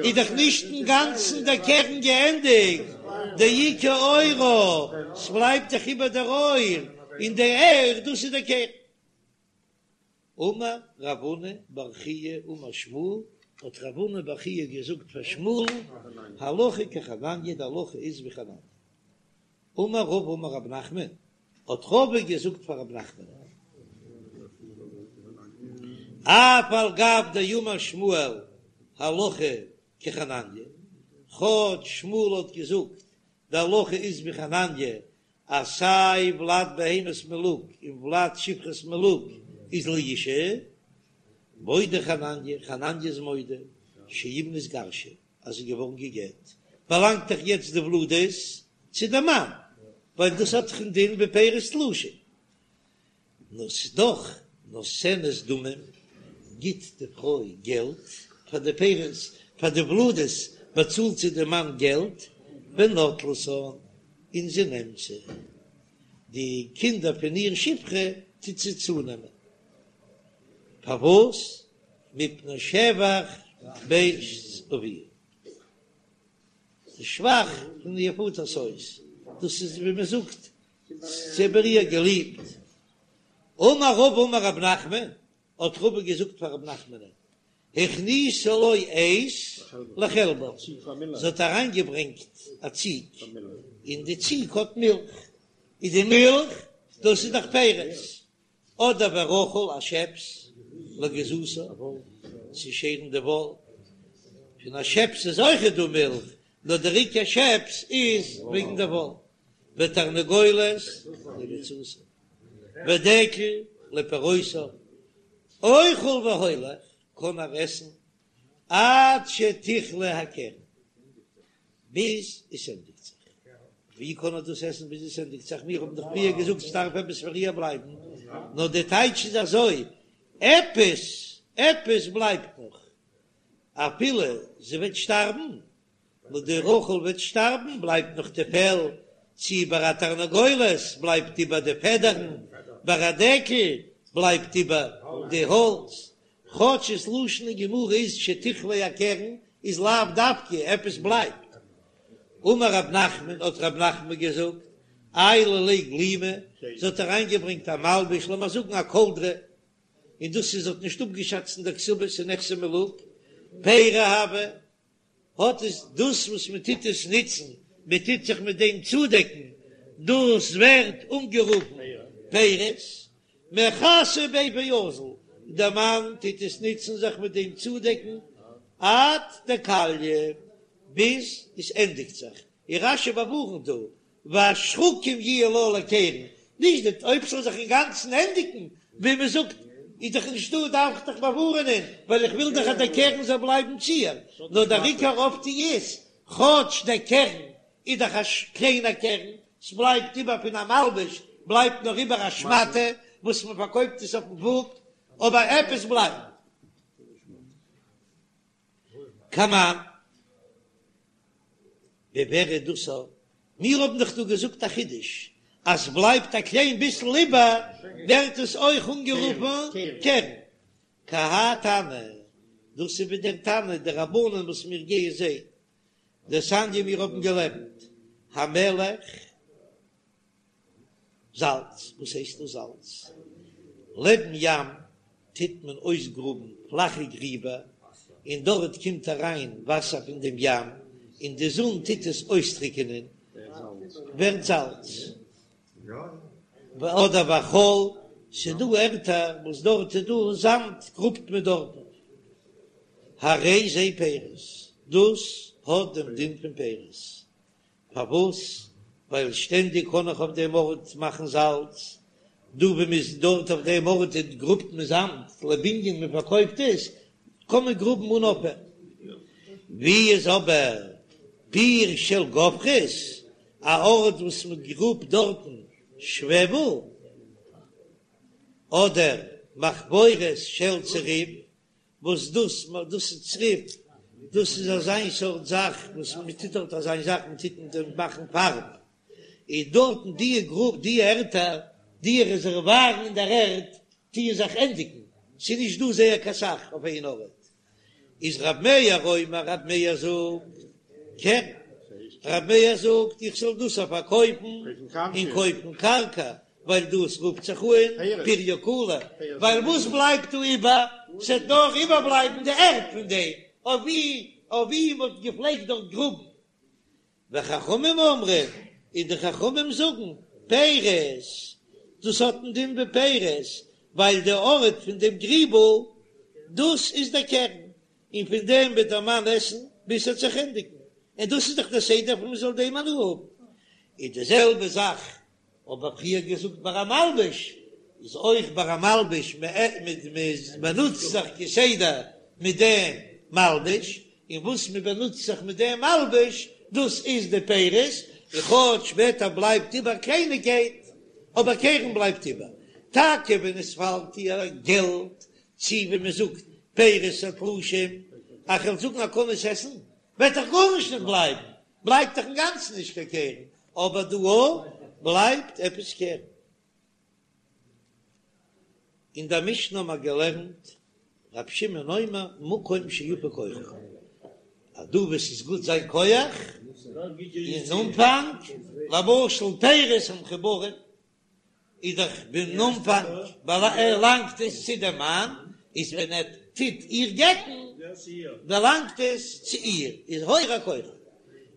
S1: איז דאך נישט אינגאנצן דער קרן געענדיגט, דאיכא עורה, ס'בלייבט דאך איבער דער עור, און די עור דאס איז דער קרן. אמר רב הונא בר חייא אמר שמואל, האט רב הונא בר חייא געזאגט פאר שמואל, הלכה כחנניה, די הלכה איז ווי חנניה. אמר רבא אמר רב נחמן, האט רבא געזאגט פאר רב נחמן, אף על גב דאמר שמואל. הלכה כחנניה, כאטש שמואל האט געזאגט די הלכה איז ווי חנניה אז סיי ולד בהמת מלוג און ולד שפחת מלוג איז לאשה, מודה חנניה, חנניה איז מודה שאם נתגרשה אז זי איז געווארן גע'גט, באלאנגט דאך יעצט די ולדות צו די מאן, ווייל דאס האט דאך א דין ווי פירות תלושים. נאר ס'איז דאך נותנת דמים, גיט די פרוי געלט פאר די פירות, פאר די ולדות באצאלט זי די מאן געלט, ונוטלתן, און זי נעמט זיי, די קינדער פון איר שפחה טוט זי צונעמען, פארוואס? מפני שבח בית אביה, די שבח פון איר פאטער'ס הויז, דאס איז ווי מען זאגט זי האט איר געליבט. אמר רבא אמר רב נחמן, האט רבא געזאגט פאר רב נחמנ'ן, הכניסה לו עז לחלבה, זי האט אריינגעברענגט א ציג, און די ציג האט מילך, איז די מילך דאס איז דאך פירות, אדער ורחל א שעפס לגיזתה צו שערן די וואל, פון א שעפס איז אויכעט דא מילך, נאר דער עיקר שעפס איז וועגן די וואל, ותרנגולת לביצתה, ודקל לפירותיו, אוכל והולך קען ער עסן עד שתכלה הקרן, ביז עס ענדיגט זיך. ווי קען ער דאס עסן ביז עס ענדיגט זיך? מיר האבן דאך פריער געזאגט ס'דארף עפעס פאר איר בלייבן, נאר די טייטש איז אזוי, עפעס, עפעס בלייבט נאך, אפילו זי וועט שטארבן, נאר די רחל וועט שטארבן, בלייבט נאך די פעל, צי ביי א תרנגולת בלייבט איבער די פעדערן, ביי א דקל בלייבט איבער די האלץ, כאטש ס'לשון אין גמרא איז שתכלה הקרן איז לאו דווקא עפעס בלייבט. אמר רב נחמן האט רב נחמן געזאגט, עיילא ליה גלימא, זי האט אריינגעברענגט א מלבוש, לאמיר זאגן א קאלדרע, און דאס איז זי האט נישט אפגעשאצט אין דער כתובה ס'איז נכסי מלוג, פירי הוו, האט עס דאס וואס מען טוט עס נוצן, מען טוט זיך מיט דעם צודעקן, דאס ווערט אנגערופן פירות, מכסי ביה ואזיל, דער מאן טוט עס נוצן זיך מיט דעם צודעקן עד דכליא, ביז עס ענדיגט זיך, און רש"י באווארנט דא, והשחקים יהיו לה לקרן, נישט די אויב ס'זאל זיך אינגאנצן ענדיגן, ווי מען זאגט איז דאך נישטא דארף איך דאך באווארענען, ווייל איך וויל דאך אז דער קרן זאל בלייבן צו איר, נאר דער עיקר אויפטו איז, כאטש דער קרן איז דאך א קליינער קרן, ס'בלייבט איבער פון א מלבוש בלייבט נאר איבער א שמאטע וואס מען פארקויפט עס אויפן וואג, אבער עפעס בלייבט. כמאן, ווי ווער איז דאס? מיר האבן דאך דא געזאגט א חידוש, אז בלייבט א קליין ביסל איבער ווערט עס אויך אנגערופן קרן. כי האי תנא, דאס איז ווי דער תנא דרבנן וואס מיר גייען זען, דתניא מיר האבן געלערנט המלח. זאלץ, וואס הייסט דאס זאלץ? לעבן ים טוט מען אויסגראבן פלאכע גריבער, און דארט קומט אריין וואסער פון דעם ים, און די זון טוט עס אויסטריקענען, ווערט זאלץ. אדער והחול, ס'איז דא ערטער וואס דארט איז דא זאמד, גראבט מען דארטן. הרי זה פירות, דאס האט דעם דין פון פירות. פארוואס? ווייל שטענדיג קען איך אויף דעם ארט מאכן זאלץ, דא ווי מ'איז דארט אויף דעם ארט גראבט מען זאמד לבנין מען פארקויפט עס, קען מען גראבן אן אויפהער. ווי איז אבער פיר של גופרית, א ארט וואס מען גראבט דארטן שוועבל, אדער מחפורת של צריף, וואס דאס דאס איז צריף, דאס איז אזיין סארט זאך וואס מען טוט דארט אזיין זאך מען טוט מיט דעם מאכן פארב, איז דארטן די גרוב די ערטער די רעזערווארן אין דער ערד טוען זיך ענדיגן, ס'איז נישט דא זייער קיין סך אויף איין ארט, איז רב מאיר אומר רב מאיר זאגט קרן, רב מאיר זאגט איך זאל דאס פארקויפן און קויפן קרקע, ווייל דאס רופט זיך אן פריה קלא, ווייל וואס בלייבט דא איבער? ס'וועט נאר איבערבלייבן די ערד פון דעם אויף ווי אויף ווי מ'האט געפלעגט דארט גראבן. וחכמים אומרים, און די חכמים זאגן, פירות, דאס האט א דין ווי פירות, ווייל די ארט פון דעם גריבל, דאס איז דער קרן. און פון דעם וועט דער מאן עסן ביז ס'וועט זיך ענדיגן, און דאס איז דאך דער סדר פון מ'זאל דעם הנאה האבן. איז די זעלבע זאך האב איך פריער געזאגט ביי א מלבוש, איז אויך ביי א מלבוש, מ'באנוצט זיך כסדר מיט דעם מלבוש, און וואס מ'באנוצט זיך מיט דעם מלבוש דאס איז די פירות, און כאטש שפעטער בלייבט איבער קלייניגקייט, אבער קרן בלייבט איבער, טאקע ווען עס פאלט איר געלט, צי ווי מ'זאגט פירות התלושים, אז כ'וועל זאגן ער קען עס עסן, וועט דאך גארנישט נישט בלייבן, בלייבט דאך אינגאנצן נישט קיין קרן, אבער דא בלייבט עפעס קרן. אין דער משנה האבן מיר געלערנט רב שמעון אומר מקום שיפה כוחו, אז דא וואו ס'איז גוט זיין כח אין אנפאנג, למשל פירות המחוברים, איז דאך ביים אנפאנג באלאנגט עס צו דעם מאן, איז ווען ער טוט איר גט'ן באלאנגט עס צו איר, איז הורע כוחו.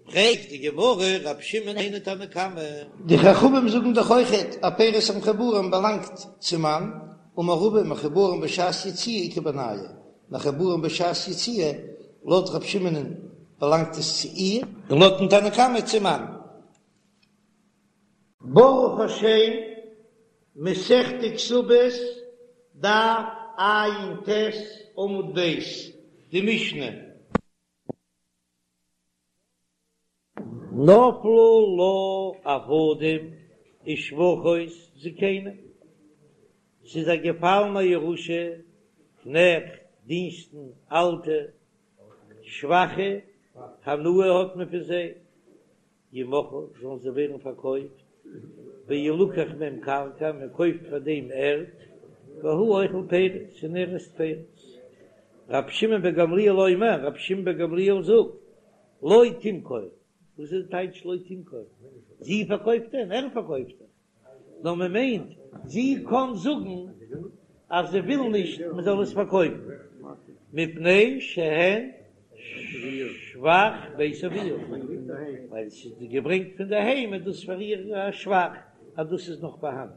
S1: פרעגט די גמרא רב שמעון היינו תנא קמא.
S2: די חכמים זאגן דאך אויכעט אז פירות המחוברים באלאנגט צום מאן, אמר רבא מחוברים בשעת יציאה איכא בינייהו, מחוברים בשעת יציאה, לויט רב שמעונ'ן באלאנגט עס צו איר,
S1: און לויטן תנא קמא צום מאן.
S2: ברוך השם, מסכת כתובות, דף ע"ט עמוד ב', די משנה.
S1: נפלו לה עבדים ושפחות זקנים, ס'איז איר געפאלן א ירושה, קנעכט, דינסטן, אלטע, שוואכע, הנאה האט מען פון זיי, ימכרו, זאלן זיי ווערן פארקויפט, וילקח מהם קרקע, מען קויפט פאר דעם ערד, והוא אוכל פירות, און ער עסט פירות. רבי שמעון בן גמליאל אומר, רבי שמעון בן גמליאל זאגט, לא תמכור, וואס איז די טייטש לא תמכור? זי פארקויפט דען? ער פארקויפט דאך. נאר מען מיינט זי קען זאגן אז זי וויל נישט מען זאל עס פארקויפן מפני שהן שבח בית אביה, ווייל עס איז געברענגט פון די היים איז דאס פאר איר א שבח אז דאס איז נאך פארהאן.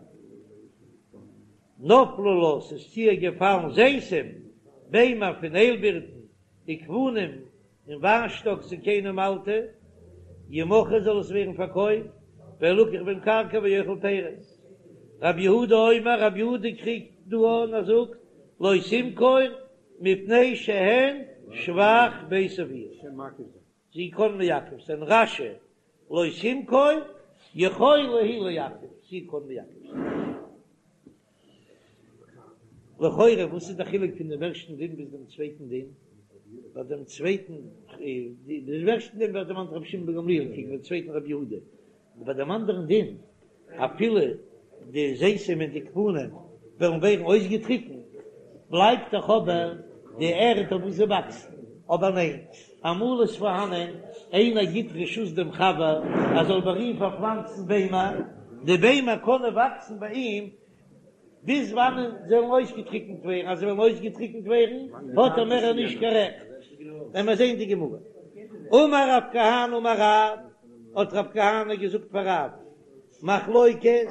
S1: נפלו לה, ס'איז צו איר געפאלן זיתים, ביימער פון איילבירטן, וגפנים, און וויינשטאק זקנים אלטע, ימכרו זאל עס ווערן פארקויפט, וילקח בהם קרקע והוא אוכל פירות. רבי יהודה אומר, רבי יהודה קריגט דא אן ער זאגט, לא תמכור מפני שהן שבח בית אביה. זי קען מעכב זיין רש"י, לא תמכור יכולה היא לעכב, זי קען מעכב זיין. לכאורה וואס איז די חילוק פון דעם ערשטן דין ביז דעם צווייטן דין? ביי דעם צווייטן, דעם ערשטן דין ווערט דערמאנט רבי שמעון בן גמליאל קעגן דעם צווייטן רבי יהודה, און ביי דעם אנדערן דין אפילו די זיתים און די גפנים וועלן ווערן אויסגעטריקנט, בלייבט דאך אבער די ערד אויף וואס זיי וואקסן. אבער ניין, אמאל איז פארהאנען איינער גיט רשות דעם חבר ער זאל ביי אים פארפלאנצן ביימער, די ביימער קענען וואקסן ביי אים ביז וואנען זיי וועלן אויסגעטריקנט ווערן, אז זיי וועלן אויסגעטריקנט ווערן האט ער מער נישט קיין רעכט. וועלן מיר זען די גמרא. אמר רב כהנא אמר רב, האט רב כהנא געזאגט פאר רב, מחלוקת,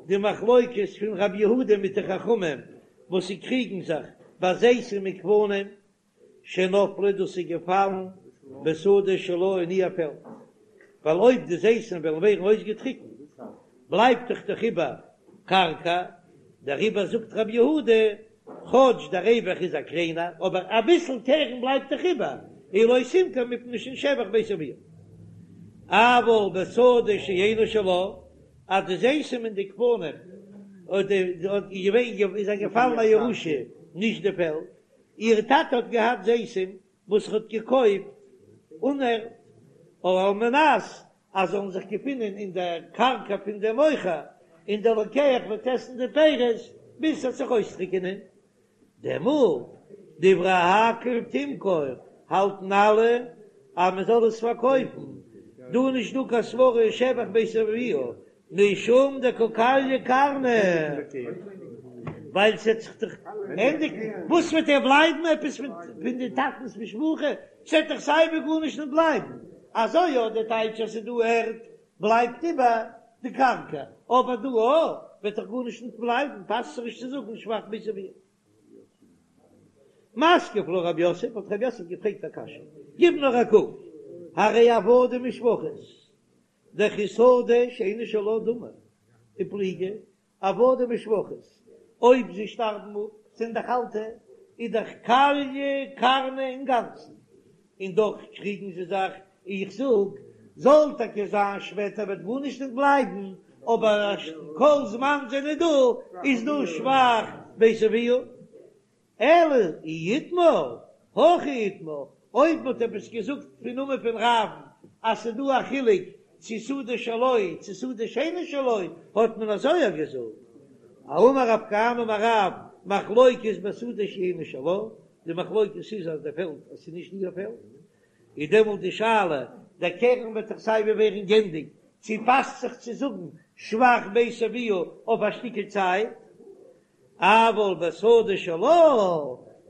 S1: די מחלוקת פון רב יהודה מיט די חכמים וואס זיי קריגן זיך ביי זיתים וגפנים, שנפלו דאס איז געפאלן בשדה שלה אין איר פעלד, ווייל אויב די זיתים וועלן ווערן אויסגעטריקנט בלייבט דאך דאך איבער קרקע, דעריבער זאגט רבי יהודה, כאטש דער רווח איז א קליינער, אבער אביסל קרן בלייבט דאך איבער, און לא תמכור מפני שהן שבח בית אביה. אבל בשדה שאינה שלה, אז די זיתים און די גפנים איז איר געפאלן א ירושה, נישט די פעלד, איר טאטע האט געהאט זיתים וואס ער האט געקויפט אן ערד, על מנת אז זאלן זיך געפינען אין דער קרקע פון דעם מוכר, און דער לוקח וועט עסן די פירות ביז ס'וועט זיך אויסטריקענען. דעמאלט, דברי הכל תמכור, האלטן אלע אז מען זאל עס פארקויפן, דא איז נישט דא קיין סברא שבח בית אביה, משום דקא כליא קרנא, ווייל ס'עט זיך דאך ענדיגן, וואס וועט ער בלייבן עפעס פון די טאטנ'ס משפחה, ס'עט דאך סייווי גארנישט נישט בלייבן, אזוי יא די טייטש אז ס'איז דא ערד בלייבט איבער די קרקע, אבער דא וועט דאך גארנישט נישט בלייבן, פאסט זיך נישט צו זאגן שבח בית אביה. מתקיף לה רב יוסף, האט רב יוסף געפרעגט א קשיא, גיב נאר א קוק, הרי עבדים ושפחות, דכי שדה שאינה שלה דמי, ופליגי, עבדים ושפחות, אויב זיי שטארבן אפ, זענען דאך אלטע, איז דאך כליא קרנא אינגאנצן, און דאך קריגן זיי זיך, איך זאג, זאל טאקע זיין שפעטער וועט גארנישט נישט בלייבן, אבער כל זמן זענען דא, איז דא שבח בית אביה. אלא אי איתמר, הכי איתמר, אויב מ'האט עפעס געזאגט פון נאמען פון רב'ן אז ס'איז דא א חילוק צו שדה שלו צו שדה שאינה שלו, האט מען אזוי יא געזאגט. אמר רב כהנא אמר רב, מחלוקת בשדה שאינה שלה, די מחלוקת איז אז די פעלד אז ס'איז נישט איר פעלד, איז דעמאלט די שאלה, דער קרן וועט דאך סיי ווי ווערן גענדיגט, צו פאסט זיך צו זאגן שבח בית אביה אויף א שטיקל צייט? אבל בשדה שלה,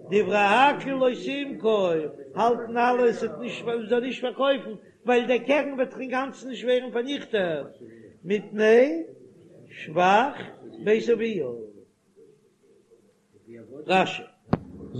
S1: דברי הכל לא תמכור, האלטן אלע עס וועט נישט מען זאל נישט פארקויפן, ווייל דער קרן וועט דאך אינגאנצן נישט ווערן פארניכטעט, מפני שבח בית אביה. רש"י.